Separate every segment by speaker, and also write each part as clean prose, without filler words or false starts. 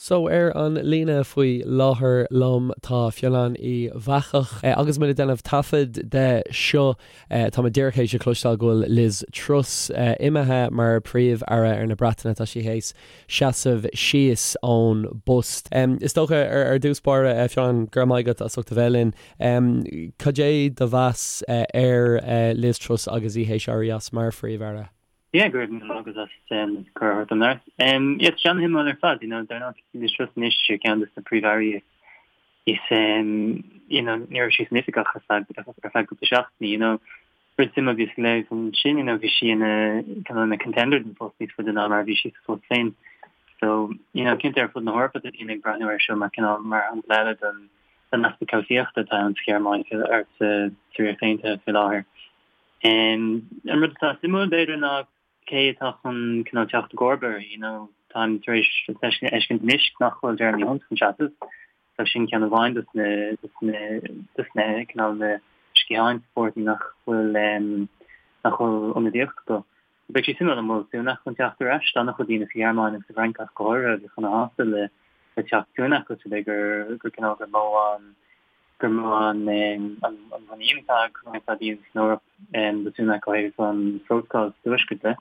Speaker 1: So, ar an líne faoi láthair liom tá Fionnán Uí Bheachach. Agus muid ag déanamh taifead de seo, tá muid díreach théis a chloisteáil go bhfuil Liz Truss imithe mar Príomh-Aire ar na Breataine. Tá sí théis seasamh síos ón bpost. Is dócha, ar dtús báire, Fionnán, go raibh maith agat as ucht a bheith linn. Cad é do mheas ar Liz Truss agus í théis éirí as mar Phríomh-Aire?
Speaker 2: Yeah, go raibh míle maith agat as cuireadh a thabhairt dom labhairt. Yeah, tá sé an-shuimiúil ar fad, you know, dar ndóigh Liz Truss anois ar ceann de na príomh-airí is, you know, ní raibh sí san oifig ach ar feadh, ar feadh cúpla seachtainí, you know. Rud suimiúil a bhíos ag léamh ansin, you know, bhí sí ina, kind of ina contender don phost níos faide ná mar a bhí sí sa phost féin. So, you know, cinnte ar fud na hEorpa tá daoine ag breathnú air seo mar cineál, mar shampla eile den, den easpa cobhsaíochta atá ann sa Ghearmáin ar sa Ríocht Aontaithe faoi láthair. An rud atá suimiúil, b'fhéidir, ná cé atá chun cineál teacht i gcomharba uirthi, you know, táim tar éis a fheiscint anois nach bhfuil Jeremy Hunt chun seasamh, so sin ceann amháin dos na, dos na, dos na, cineál na sciatháin sa pháirtí nach bhfuil, nach bhfuil ionadaíocht acu. Beidh sé suimiúil an bhfuil Sunak chun teacht ar ais, tá an-chuid daoine sa Ghearmáin agus sa bhFrainc ach go háirithe a bheadh ana-shásta le, le teacht Sunak os rud é gur, gur cineál gur mó an, gur mó an mhuinín atá ag roinnt daoine san Eoraip do Sunak ó thaobh an phrótacail sa Tuaisceart de.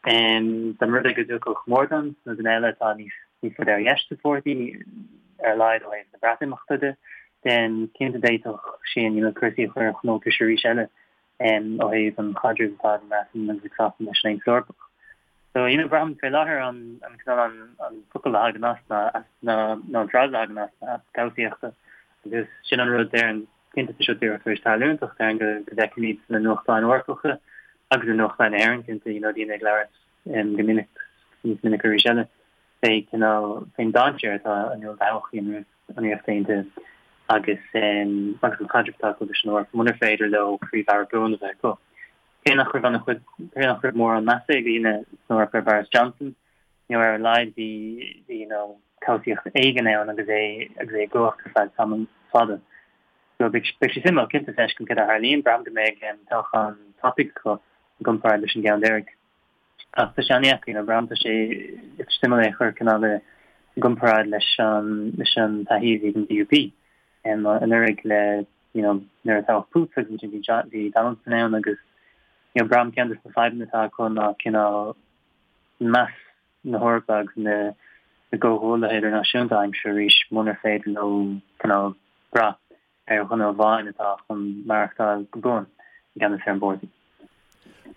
Speaker 2: Dá mba rud é go dtiocfadh Mordaunt nó duine eile atá níos faide ar dheis sa pháirtí, ar a laghad ó thaobh na Breatimeachta de, then cinnte d'fhéadfadh sin you know cúrsaí a chur ar a gcuntas arís eile ó thaobh an chaidrimh atá ag an mBreatain agus ag Sasana leis an Aontas Eorpach. So, you know, braithim fé láthair an, an cineál an, an focal a thagann as ná, ná, ná an frása a thagann as ná easpa cobhsaíochta. Agus sin an rud déarfainn, cinnte tá seo díreach tar éis tarlúint ach déarfainn go, go bhfeicfimid sna nuachtáin Eorpacha agus i nuachtáin na hÉireann cinnte, you know, daoine ag labhairt um, go minic, níos minice arís eile, fé cineál, fén dainséar atá i ndán do thodhchaí an an Ríocht Aontaithe agus um, agus an chaidreamh atá acu leis an Eoraip, munar féidir leo príomh-aire buan a bheith acu. Cé nach raibh an-chuid, cé nach raibh mórán measa ag daoine san Eoraip ar Boris Johnson, you know, ar a laghad bhí, bhí, you know, cobhsaíocht éigin ann agus é, agus é i gcumhacht ar feadh tamall fada. So beidh, beidh sé suimiúil cinnte feiscint céard a tharlaíonn. Braithim go mbeidh toghchán tapaidh acu i gcomparáid leis an gceann deiridh. Ach tá sé an-dheacair, you know, braithim tá sé suimiúil é a chur cineál i gcomparáid leis an, leis an taithí a bhí ag an DUP anuraidh le you know, nuair a toghadh Poots agus ansin bhí John, bhí Donaldson ann agus, you know, braithim ceann de na fadhbanna atá acu ná cineál meas na hEorpa agus na na gcomhghuaillithe idirnáisiúnta a aimsiú arís munar féidir leo cineál brath ar dhuine amháin atá chun maireachtáil go buan i gceannas ar an bpáirtí.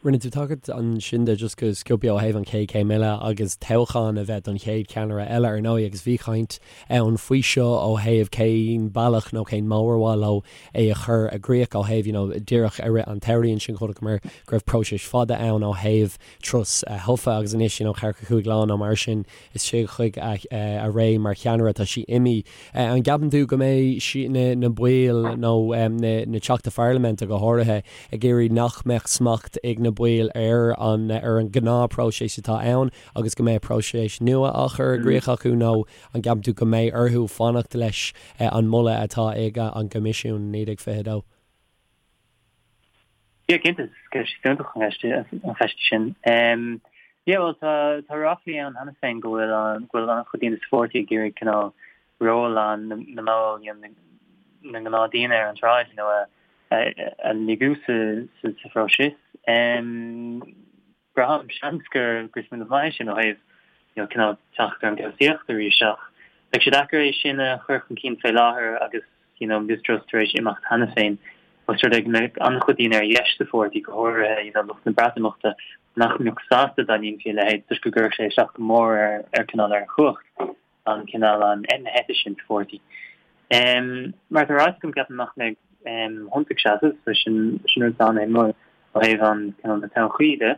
Speaker 1: Rinne tú tagairt ansin de just go sciobtha ó thaobh an chéad chéim eile agus toghchán a bheith don chéad cheannaire eile ar ndóigh agus bhí caint ann faoi seo ó thaobh cén bealach nó cén modh ar mhaith leo é a chur i gcrích ó thaobh you know díreach i rith an tsamhraidh ansin chonaiceamar go raibh próiseas fada ann ó thaobh Truss a thofa agus anois you know ceathracha cúig lá nó mar sin istigh chuig a ré mar cheannaire tá sí imithe. An gceapann tú go mbeidh na na baill nó na na Teachtaí Pharlaiminte go háirithe ag iarraidh nach mbeadh smacht ag na baill ar an ar an ngnáthphróiseas atá ann agus go mbeadh próiseas nua á chur i gcrích acu nó an gceapann tú go mbeidh orthu fanacht leis an moladh atá ag an gCoimisiún 1922?
Speaker 2: Yeah, cinnte, is ceist fiúntach an cheist an cheist sin. Yeah, bhuel, tá tá ráflaí ann cheana féin go bhfuil an go bhfuil an-chuid daoine sa pháirtí ag iarraidh cineál ról an na mball, you know, na ngnáthdhaoine ar an tsráid, you know, a a lagú sa sa sa phróiseas. Braithim, seans gur gur smaoineamh maith é sin ó thaobh you know cineál teacht ar an gcobhsaíocht arís ach beidh sé deacair é sin a chur chun cinn fé láthair agus you know Liz Truss tar éis imeacht cheana féin. Ós rud é go mbeadh an-chuid daoine ar dheis sa pháirtí, go háirithe you know lucht na Breatimeachta, nach mbeadh sásta dá ndéanfaí a leithéid toisc go gcuirfeadh sé isteach go mór ar ar cineál ar chumhacht an cineál an na heite sin sa pháirtí. Mar atá ráite agam ceapaim nach mbeidh Hunt ag seasamh so sin sin rud an-shuimiúil ó thaobh an cineál na todhchaí de.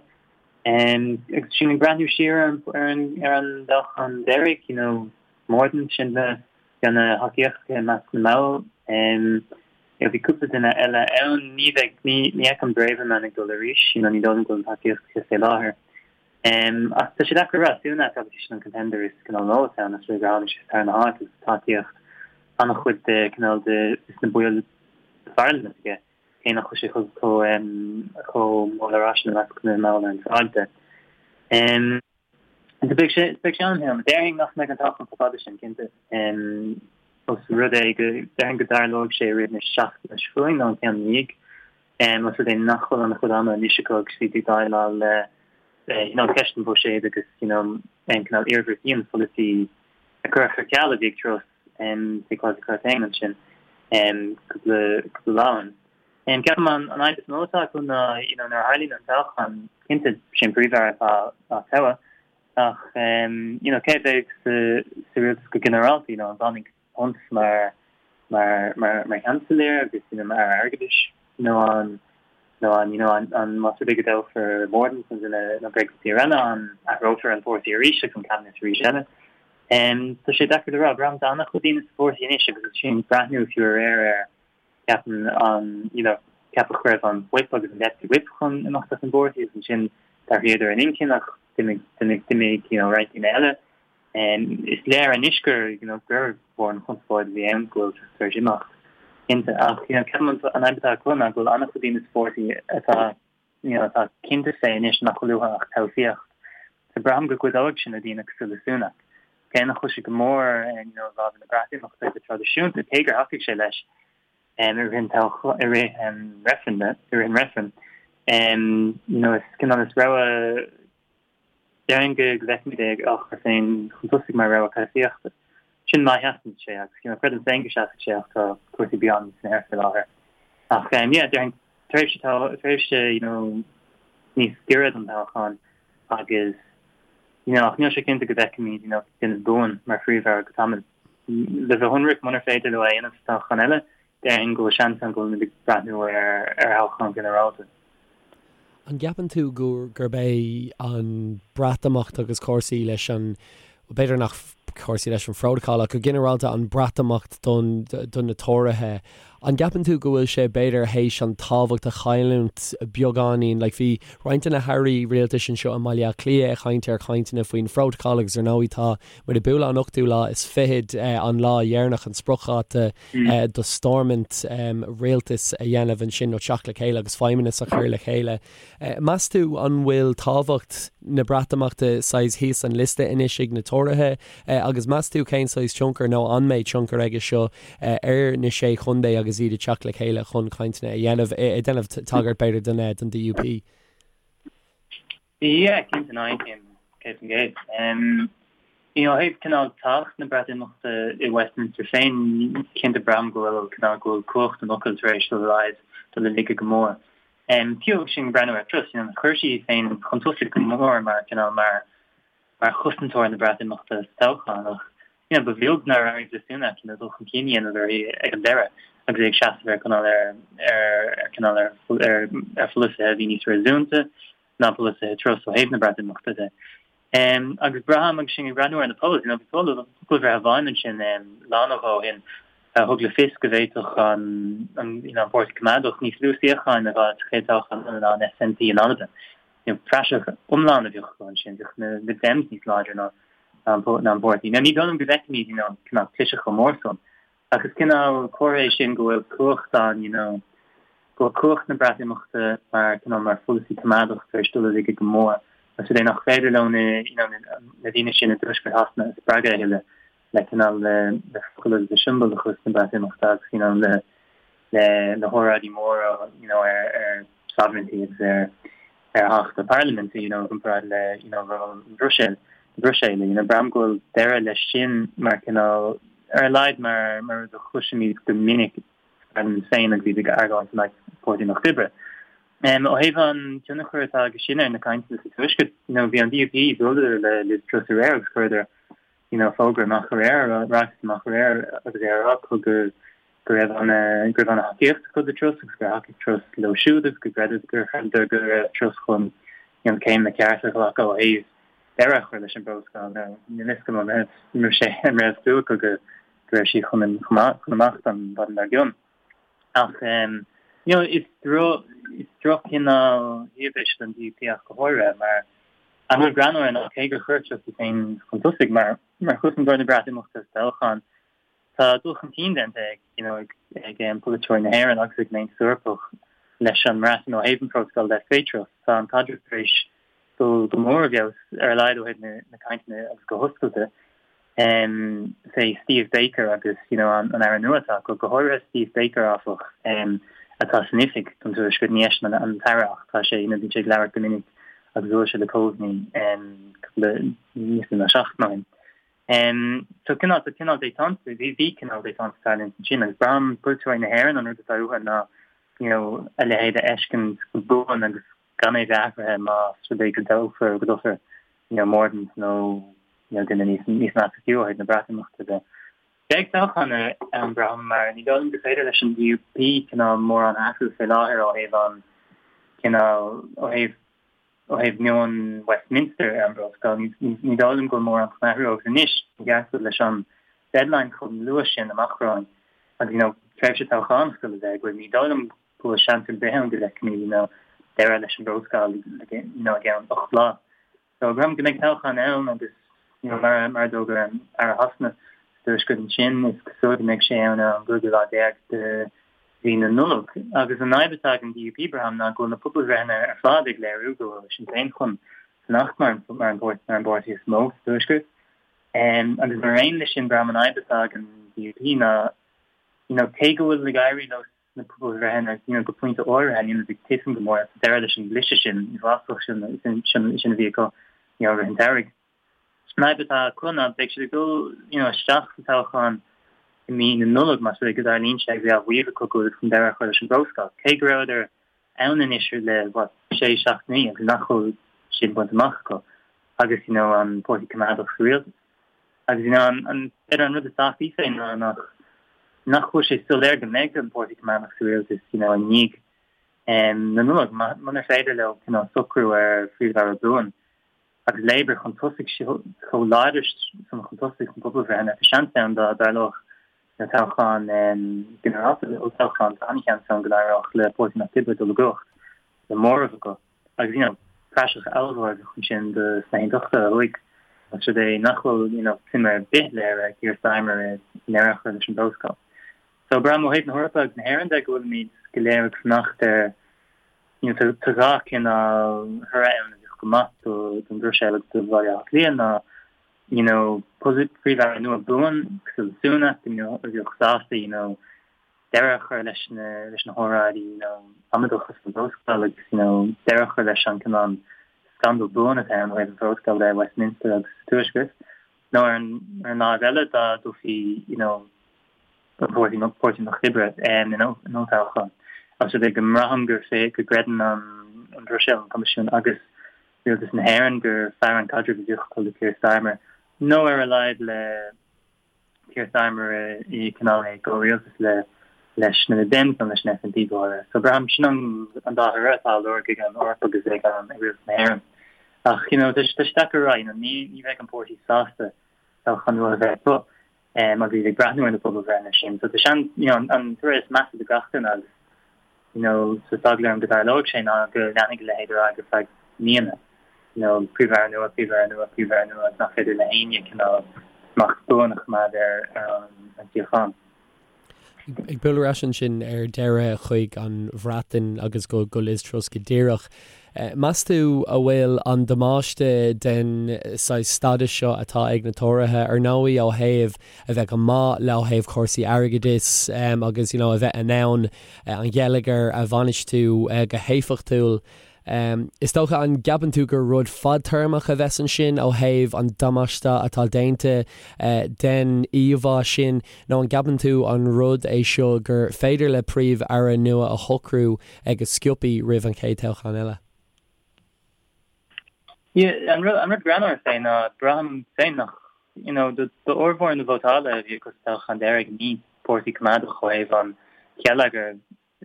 Speaker 2: Agus sinn ag breathnú siar ar an ar an ar an dtoghchán deiridh you know Mordaunt sin na bhí ana-thacaíocht aige i measc na mball. You know bhí cúpla duine eile ann ní bheidh ní ní fheicim Braverman ag dul arís you know ní dóigh liom go bhfuil an tacaíocht aici fé láthair. Ach tá sé deacair a rá, Sunak obviously sin an contender is cineál mó atá ann, is gur tháinig sé sa tarna háit agus tacaíocht an-chuid de cineál de na baill sa pharlaimint aige, cé nach bhfuil sé chomh chomh mór le rá sin i measc na mball ar an tsráid de. So beidh sé beidh sé an-shuimiúil. Déarfainn nach mbeidh an toghchán chomh fada sin, cinnte. Ós rud é go déarfainn go dtarlóidh sé i rith na seachtaine seo chugainn nó an ceann ina dhiaidh. Ós rud é nach bhfuil an-chuid ama anois acu agus iad ag déileáil le you know ceist an bhuiséid agus you know an cineál iarmhairtí an pholasaí a cuireadh ar ceal a bhí ag Truss faoi Kwasi Kwarteng ansin cúpla cúpla lá ó shin. Ceapaim an fhadhb is mó atá acu ná you know nuair a tharlaíonn an toghchán, cinnte sé an Príomh-Aire atá á toghadh ach you know cé a bheidh sa sa rialtas go ginearálta, you know an bhfanfaidh Hunt mar mar mar mar Sheansailéir agus you know mar Aire Airgeadais nó an nó an you know an an más rud é go dtoghfar Mordaunt nó duine nó Greg eile an athrófar an páirtí arís agus an cabinet arís eile. Tá sé deacair le rá, braithim tá an-chuid daoine sa pháirtí anois agus sin breathnú fiú aréir ar ceapaim an you know ceapadh go raibh an whip agus an deputy whip chun imeacht as an bpáirtí agus ansin d'athraíodar a n-intinn ach d'imigh d'imigh d'imigh you know roinnt daoine eile. Is léir anois gur you know gur mhór an chonspóid a bhí ann go bhfuil tar éis imeacht cinnte ach you know ceapaim an fhadhb atá acu ná go bhfuil an-chuid daoine sa pháirtí atá you know, atá cinnte fé anois nach bhfuil uathu ach cobhsaíocht. So braithim go gcuideoidh sin le daoine cosúil le Sunak. Cé nach bhfuil sé go mór you know, i bhfabhar na Breatimeachta go traidisiúnta, cé gur thacaigh sé leis um, i rith an i rith um, reifreann, i rith an reifreann. Um, you know, is cineál is rogha Déarfainn go bhfeicfimid é á chur féin chun tosaigh mar rogha cobhsaíochta. Sin má sheasann sé, agus you know creidim féin go seasfaidh sé ach tá cúrsaí beagán san aer faoi láthair. Ach yeah, déarfainn tréimhse tréimhse you know níos giorra don toghchán agus you know ach níl sé cinnte go bhfeicfimid you know duine buan mar phríomh-aire go tamall. Le bheith ionraic, munar féidir leo é a dhéanamh sa toghchán eile, déarfainn go bhfuil seans ann go bhfuilimid ag breathnú ar ar thoghchán ginearálta.
Speaker 1: An gceapann tú gurb é an Breatimeacht agus cúrsaí leis an, b'fhéidir nach cúrsaí leis an phrótacal ach go ginearálta an Breatimeacht don do na Tóraithe, an gceapann tú go bhfuil sé b'fhéidir théis an tábhacht a chailliúint beagáinín? Like bhí roinnt de na hairí rialtais anseo i mBaile Átha Cliath ag caint ar chainteanna faoin phrótacal agus ar ndóigh tá muid ag bualadh an ochtú lá is fichead an lá dheireanach an spriocdháta do Stormont rialtas a dhéanamh ansin nó teacht le chéile agus feidhmeannas a chur le chéile. Meas tú an bhfuil tábhacht na Breatimeachta saghas thíos an liosta anois ag na Tóraithe agus meas tú cén saghas tionchar nó an mbeidh tionchar aige seo ar na Sé Chontae agus iad ag teacht le chéile chun cainteanna a dhéanamh, ag déanamh tagairt b'fhéidir don DUP?
Speaker 2: Yeah, cinnte, no, aontaím 100%. You know, ó thaobh cineál tábhacht na Breatimeachta i Westminster féin, cinnte braithim go bhfuil cineál go bhfuil cumhacht an fhocail tar éis dul i laghad, dul i laige go mór. Fiú agus sinn ag breathnú ar Truss, you know, chuir sí í féin chun tosaigh go mór mar cineál mar mar chosantóir na Breatimeachta sa toghchán ach you know, ba bheag nár éirigh le Sunak you know, dul chun cinn a dhéanamh uirthi ag an deireadh agus é ag seasamh ar cineál ar ar cineál ar ar ar pholasaithe a bhí níos réasúnta ná polasaithe Truss ó thaobh na Breatimeachta de. Um, agus braithim agus sinn ag breathnú ar na polls, you know, bhí poll pobalbhreith amháin ansin um, lá nó dhó ó shin a thug le fios go bhféadfadh an, an, you know, an Páirtí Coimeádach níos lú suíocháin a fháil sa chéad toghchán eile ná an SNP in Albain. You know, praiseach iomlán a bheadh acu ansin, bheadh na Lib Dems níos láidre ná ná an ná an páirtí. Now ní dóigh liom go bhfeicfimid, you know, cineál cliseadh chomh mór san, ach is cineál comhartha é sin go bhfuil cumhacht an, you know, go bhfuil cumhacht na Breatimeachta mar cineál mar pholasaí coimeádach tar éis dul i laige go mór. Ós rud é nach féidir leo na, you know, na daoine sin i dtuaisceart Shasana a spreagadh a thuilleadh le cineál le le focail agus le siombalachas na Breatimeachta agus, you know, le le na hóráidí móra you know ar ar sovereignty agus ar ar theacht na parlaiminte you know i gcomparáid le you know ról na Bruiséil na Bruiséile you know braithim go bhfuil deireadh leis sin mar cineál ar a laghad mar mar rud a chloisimid go minic sa pharlaimint féin agus iad ag argóint in aghaidh Páirtí an Lucht Oibre. Um, ó thaobh an tionchar atá aige sin ar na cainteanna sa Tuaisceart, you know, bhí an DUP bhuaileadar le Liz Truss aréir agus chuireadar you know, fógra amach aréir, ráiteas amach aréir agus é á rá acu go go raibh an go raibh an-thacaíocht acu do Truss agus gur thacaigh Truss leo siúd agus go gcreideadar gur chreideadar go raibh Truss chun you know, céimeanna cearta a ghlacadh ó thaobh deireadh a chur leis an bprótacal. Now, níl fhios agam an raibh an raibh sé an raibh súil acu go go raibh sí chun chun imeacht an mhaidin dár gcionn. Ach um, you know, is droch is droch-chineál shuíomh é seo don DUP ach go háirithe mar an rud greannmhar ná cé gur chuir Truss í féin chun tosaigh mar mar chosantóir na Breatimeachta sa toghchán, tá dul chun cinn déanta ag you know, ag ag um, polaiteoirí na hÉireann agus ag an Aontas Eorpach leis an mBreatain ó thaobh an phrótacail de faoi Truss. Tá an caidreamh tar éis dul go mór i bhfeabhas ar a laghad ó thaobh na cainteanna agus go hoscailte fé Steve Baker agus you know an aire nua atá acu, go háirithe Steve Baker áfach atá san oifig don Tuaisceart, ní eisean an t-aire ach tá sé you know bíonn sé ag labhairt go minic agus bhuail sé le Coveney cúpla níos mó ná seachtain ó shin. So cineál tá cineál détente bhí bhí cineál détente ag tarlúint ansin agus braithim polaiteoirí na hÉireann an rud atá uathu ná you know a leithéid a fheiscint go buan agus gan é bheith athraithe más rud é go dtoghfar go dtoghfar you know Mordaunt nó you know duine níos níos measa fiú ó thaobh na Breatimeachta de. Beidh toghchán ann braithim mar ní dóigh liom gur féidir leis an DUP cineál mórán a athrú fé láthair ó thaobh an cineál ó thaobh ó thaobh meon Westminster ar an bPrótacal. Ní dóigh liom go bhfuil mórán chun athrú agus anois i gceart leis an deadline chomh luath sin amach romhainn agus you know tréimhse toghchánach le bheith againn ní dóigh liom go bhfuil seans ar bith ann go bhfeicfimid you know deireadh leis an bPrótacal you know i gceann 8 lá. So braithim go mbeidh toghchán ann agus you know mar mar a d'fhógair an Aire Shasana sa Tuaisceart ansin is cosúil go mbeidh sé ann ar an gcúigiú lá déag de mhí na Nollag. Agus an fhadhb atá ag an DUP braithim ná go bhfuil na pobalbhreitheanna ar fad ag léiriú go bhfuil Sinn Féin chun fanacht mar mar an mar an bpáirtí is mó sa Tuaisceart. Agus mar aon leis sin braithim an fhadhb atá ag an DUP ná you know cé go bhfuil ag éirí leo sna pobalbhreitheanna you know go pointe áirithe níl siad ag titim go mór tá deireadh leis an gcliseadh sin uafásach sin sin sin a bhí acu you know i rith an tsamhraidh. An fhadhb atá acu ná beidh siad ag dul you know isteach sa toghchán i mí na Nollag más rud é go dtarlaíonn sé agus é á mhaíomh acu go bhfuil chun deireadh a chur leis an bPrótacal. Cé go rabhadar ann anois le what sé seachtainí agus nach bhfuil sin bainte amach acu agus you know an Páirtí Coimeádach sa rialtas. Agus you know an an b'fhéidir an rud is tábhachtaí féin ná nach nach bhfuil sé soiléir go mbeidh an Páirtí Coimeádach sa rialtas you know i ndiaidh na Nollag munar féidir leo cineál socrú ar phríomh-aire buan agus Labour chun tosaigh chomh láidir san chun tosaigh sna pobalbhreitheanna tá seans ann dá dtarlódh na toghchán ginearálta olltoghchán tá an-sheans ann go n-éireodh le Páirtí an Lucht Oibre dul i gcumhacht le móramh acu. Agus, you know, praiseach ollmhór a bheadh ansin do sna hAontachtaithe ó thuaidh, más rud é nach bhfuil, you know, suim ar bith léirithe ag Keir Starmer i ndeireadh a chur leis an bPrótacal. So, braithim ó thaobh na hEorpa agus na hÉireann de go bhfuilimid go léir ag fanacht ar, you know, tá dhá chineál thoradh ann a bheadh go maith do don Bhruiséil agus do Bhaile Átha Cliath ná, you know, príomh-aire nua buan cosúil le Sunak, you know, a bheadh sásta, you know, deireadh a chur leis na leis na hóráidí you know amaideacha faoin bPrótacal agus you know deireadh a chur leis an cineál scandal buan atá ann ó thaobh an Phrótacail de i Westminster agus sa Tuaisceart. Nó ar an ar an láimh eile dá dtoghfaí you know an Páirtí Páirtí an Lucht Oibre in in olltoghchán. Ós rud é go mbraithim gur fé go gcreideann an an Bhruiséil, an Coimisiún agus Rialtas na hÉireann gur fearr an caidreamh a bheadh acu le Keir Starmer nó ar a laghad le Keir Starmer i cineál i gcomhrialtas le leis na Lib Dems nó leis an SNP go háirithe. So braithim sin an an dá thoradh atá á lorg ag an Eoraip agus ag an ag rialtas na hÉireann. Ach you know tá sé deacair a rá you know ní ní bheidh an páirtí sásta toghchán nua a bheith acu um agus iad ag breathnú ar na pobalbhreitheanna sin. So tá seans you know an toradh is measa do gach duine agus you know, so tá eagla orm go dtarlóidh sé ná go leanfaidh a leithéid ar aghaidh ar feadh míonna, you know, príomh-aire nua, príomh-aire nua, príomh-aire nua agus nach féidir le héinne cineál smacht buan a choimeád ar ar an tsíocháin.
Speaker 1: Ag bualadh ar ais ansin ar deireadh chuig an Bhreatain agus go go Liz Truss go díreach. Meas tú a bhfuil an damáiste den saghas stádas seo atá ag na Tóraithe, ar ndóigh ó thaobh a bheith go maith le ó thaobh cúrsaí airgeadais agus you know a bheith in ann an geilleagar a bhainistiú go héifeachtúil. Is dócha, an gceapann tú gur rud fadtéarmach a bheas ansin ó thaobh an damáiste atá déanta den íomhá sin nó an gceapann tú an rud é seo gur féidir le Príomh-Aire nua a shocrú go sciobtha roimh an chéad toghchán eile?
Speaker 2: Yeah, an rud, an rud greannmhar fé ná braithim féin nach, you know, do, d'fhormhór na vótála a bhí acu sa toghchán deiridh ní páirtí coimeádach ó thaobh an gheilleagair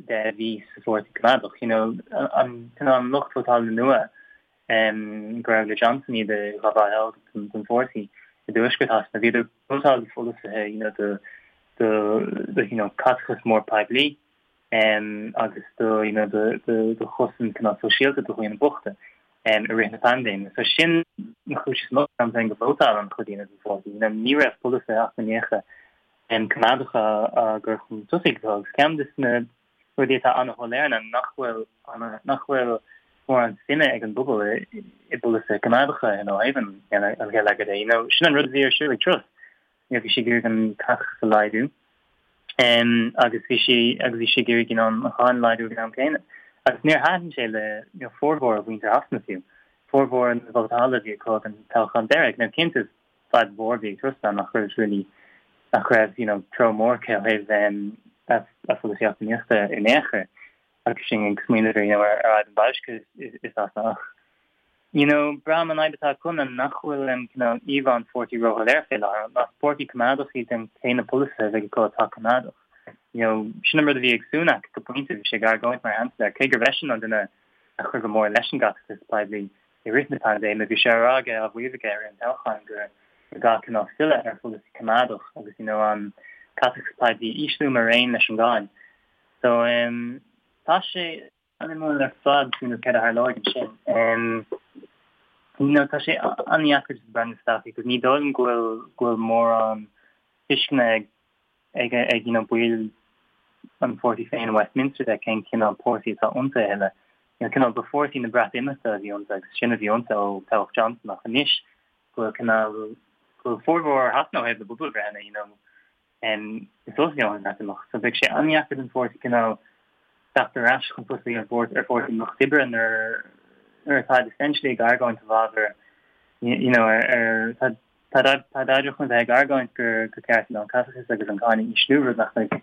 Speaker 2: de a bhí sa pháirtí coimeádach, you know, an, cineál an lucht vótála nua um, go raibh le Johnson iad a ghabháil don, don pháirtí i dtuaisceart Shasana, bhíodar ag vótáil do pholasaithe, you know, do, do, do, you know, caiteachas mór poiblí. agus do you know do do chosaint cineál sóisialta do dhaoine bochta i rith na paindéime. So sin an chúis is mó braithim féin go vótáil an-chuid daoine don pháirtí. You know ní raibh polasaithe eacnamaíocha coimeádacha á gcur chun tosaigh acu agus ceann de na rudaí atá an-shoiléir ná nach bhfuil nach bhfuil. mórán suime ag an bpobal i bpolasaithe coimeádacha ó thaobh an gheilleagair de. You know, sin an rud a bhí ar siúl ag Truss. You know, bhí sí ag iarraidh an caiteachas a laghdú agus bhí sí agus bhí sí ag iarraidh you know, an cháin a laghdú ag an am céanna. Agus níor thaitin sé le you know, formhór mhuintir Shasana fiú. Formhór na vótála a bhí acu ag an toghchán deiridh. Now, cinnte, fadhb mhór a bhí ag Truss ná nach raibh really nach raibh you know, treo mór aici ó thaobh a pholasaí eacnamaíochta in aon chor. Agus sinn ag smaoineamh ar you know ar fhadhb an bhoilscithe i Sasana ach you know braithim an fhadhb atá acu ná nach bhfuil an cineál íomhá an pháirtí róshoiléir fé láthair. Más páirtí coimeádach iad then cé na polasaithe a bheidh acu atá coimeádach? You know sin an rud a bhí ag Sunak go pointe, bhí sé ag argóint mar Sheansailéir, cé gurbh eisean an duine a chuir go mór leis an gcaiteachas poiblí i rith na paindéime, bhí sé á rá aige, á mhaíomh aige i rith an toghcháin gur gur gá cineál filleadh ar pholasaí coimeádach agus you know an caiteachas poiblí a ísliú mar aon leis an gcáin. So em tá sé an-shuimiúil ar fad you know céard a tharlóidh ansin. Em you know tá sé an-dheacair just breathnú isteach because ní dóigh liom go bhfuil go bhfuil mórán tuisceana ag ag ag you know baill an pháirtí féin i Westminster de cén cineál páirtí atá iontu a thuilleadh. You know cineál ba pháirtí na Breatimeachta a bhí iontu agus sin a bhí iontu ó toghadh Johnson ach anois go bhfuil cineál go bhfuil formhór Shasana ó thaobh na bpobalbhreitheanna you know is dócha go an Bhreatimeacht. So beidh sé an-dheacair don pháirtí cineál teacht ar ais chun tosaigh ar bhord ar Pháirtí an Lucht Oibre nuair nuair atá essentially ag argóint i bhfabhar you know ar ar tá tá tá oidhreacht chun bheith ag argóint gur gur ceart an caiteachas agus an cáin a ísliú rud nach mbeidh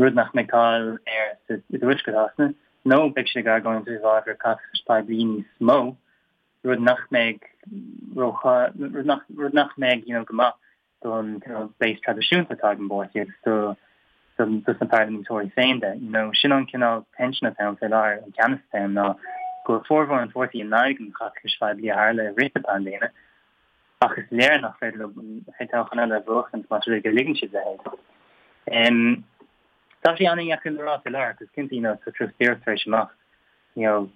Speaker 2: rud nach mbeidh cáil air sa i dTuaisceart Shasana nó beidh siad ag argóint i bhfabhar caiteachais poiblí níos mó rud nach mbeidh ró rud nach rud nach mbeidh you know go maith don cineál base traidisiúnta atá ag an bpáirtí agus do dos na parlaiminteoirí féin de. You know, sin an cineál tension atá ann fé láthair, an teannas atá ann ná go bhfuil formhór an pháirtí in aghaidh an chaiteachais phoiblí a tharla i rith na paindéime ach is léir nach féidir leo an chéad toghchán eile a bhuachaint más rud é go ligeann siad a leithéid. Um, tá sé an-dheacair le rá fé láthair agus cinnte, you know, tá Truss díreach tar éis imeacht, you know,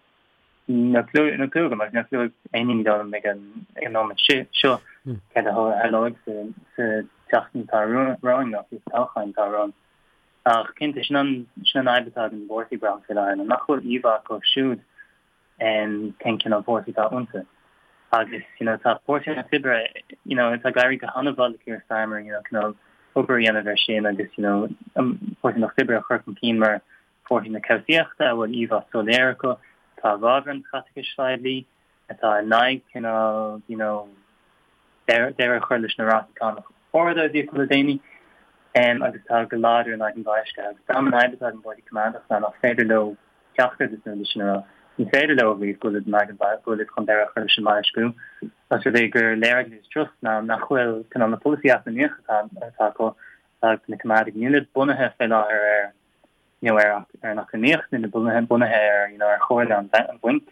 Speaker 2: Níl clue níl clue agam agus níl clue ag aon duine dóigh liom ag an ag an nóiméad seo céard a tharlóidh sa sa tseachtain atá romhainn nó fiú sa toghchán atá romhainn. Ach cinnte sin an sin an fhadhb atá ag an bpáirtí braithim faoi láthair ná nach bhfuil íomhá acu siúd cén cineál páirtí atá iontu. Agus you know tá Páirtí an Lucht Oibre you know tá ag éirí go han-mhaith le Keir Starmer you know cineál obair a dhéanamh air sin agus you know an Páirtí an Lucht Oibre a chur chun cinn mar Páirtí na cobhsaíochta a bhfuil íomhá soiléir acu, atá i bhfabhar an chaiteachais phoiblí, atá in aghaidh cineál you know deireadh a chur leis na rátaí cánach arda a bhí acu le déanaí, agus atá go láidir in aghaidh an bhoilscithe. Agus braithim an fhadhb atá ag an bPáirtí Coimeádach ná nach féidir leo ceachtar de na rudaí sin a rá. Ní féidir leo a mhaíomh go bhfuil in aghaidh an go bhfuil chun deireadh a chur leis an mboilsciú, os rud é gur léir ag Liz Truss ná nach bhfuil cineál na polasaithe eacnamaíocha atá atá acu, atá ag na Coimeádaigh, níl siad bunaithe fé láthair ar you know, ar ar an eacnamaíocht, níl bunaithe bunaithe ar you know, ar chomhairle an an bhainc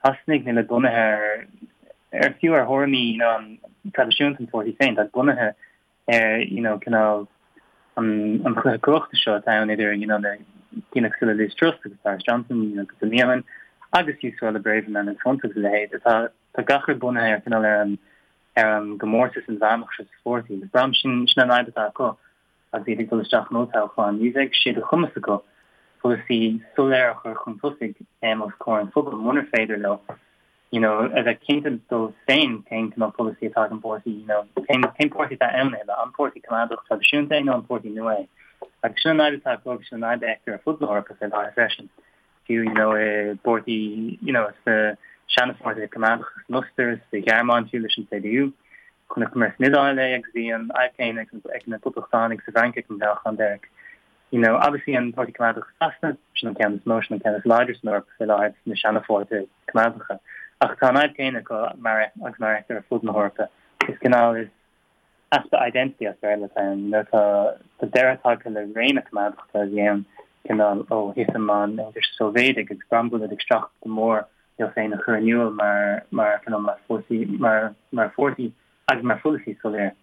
Speaker 2: Shasanaigh, níl bunaithe ar ar fiú ar thuairimí you know, an traidisiúnta an pháirtí féin, tá bunaithe ar you know, cineál an an chluiche cumhachta seo atá ann idir you know, na daoine cosúil le Liz Truss agus Boris Johnson you know, cúpla mí ó shin agus fiú Suella Braverman agus Hunt agus a leithéid atá tá gach rud bunaithe ar cineál ar an ar an gcomórtas inmheánach seo sa pháirtí. Agus braithim sin sin an fhadhb atá acu. Agus iad ag dul isteach in olltoghchán, ní bheidh sé de chumas acu polasaí soiléir a chur chun tosaigh os comhair an phobail munar féidir leo you know a bheith cinnte dóibh féin cén cineál polasaí atá ag an bpáirtí, you know cén cén páirtí atá ann a thuilleadh, an páirtí coimeádach traidisiúnta é nó an páirtí nua é. Agus sin an fhadhb atá acu agus sin an fhadhb a fheictear ar fud na hEorpa fé láthair freisin. Fiú you know i bpáirtí you know sna seana-pháirtithe coimeádacha san Ostair, sa Ghearmáin fiú leis an CDU. Chonaiceamar san Iodáil é agus bhí an fhadhb chéanna ag na Poblachtánaigh sa bhFrainc ag an toghchán deiridh. You know, obviously an Páirtí Coimeádach i Sasana, sin an ceann is mó, sin an ceann is láidre san Eoraip faoi láthair sna seana-pháirtithe coimeádacha. Ach tá an fhadhb chéanna acu mar agus mar a fheictear ar fud na hEorpa. Is cineál is easpa identity as Béarla atá ann. You know, tá tá deireadh tagtha le ré na coimeádachta a bhí ann cineál ó thitim an Aontais Sóivéadaigh agus braithim go bhfuil siad ag streachailt go mór leo féin a chur in iúl mar mar cineál mar pháirtí mar mar pháirtí agus mar pholasaí soiléir.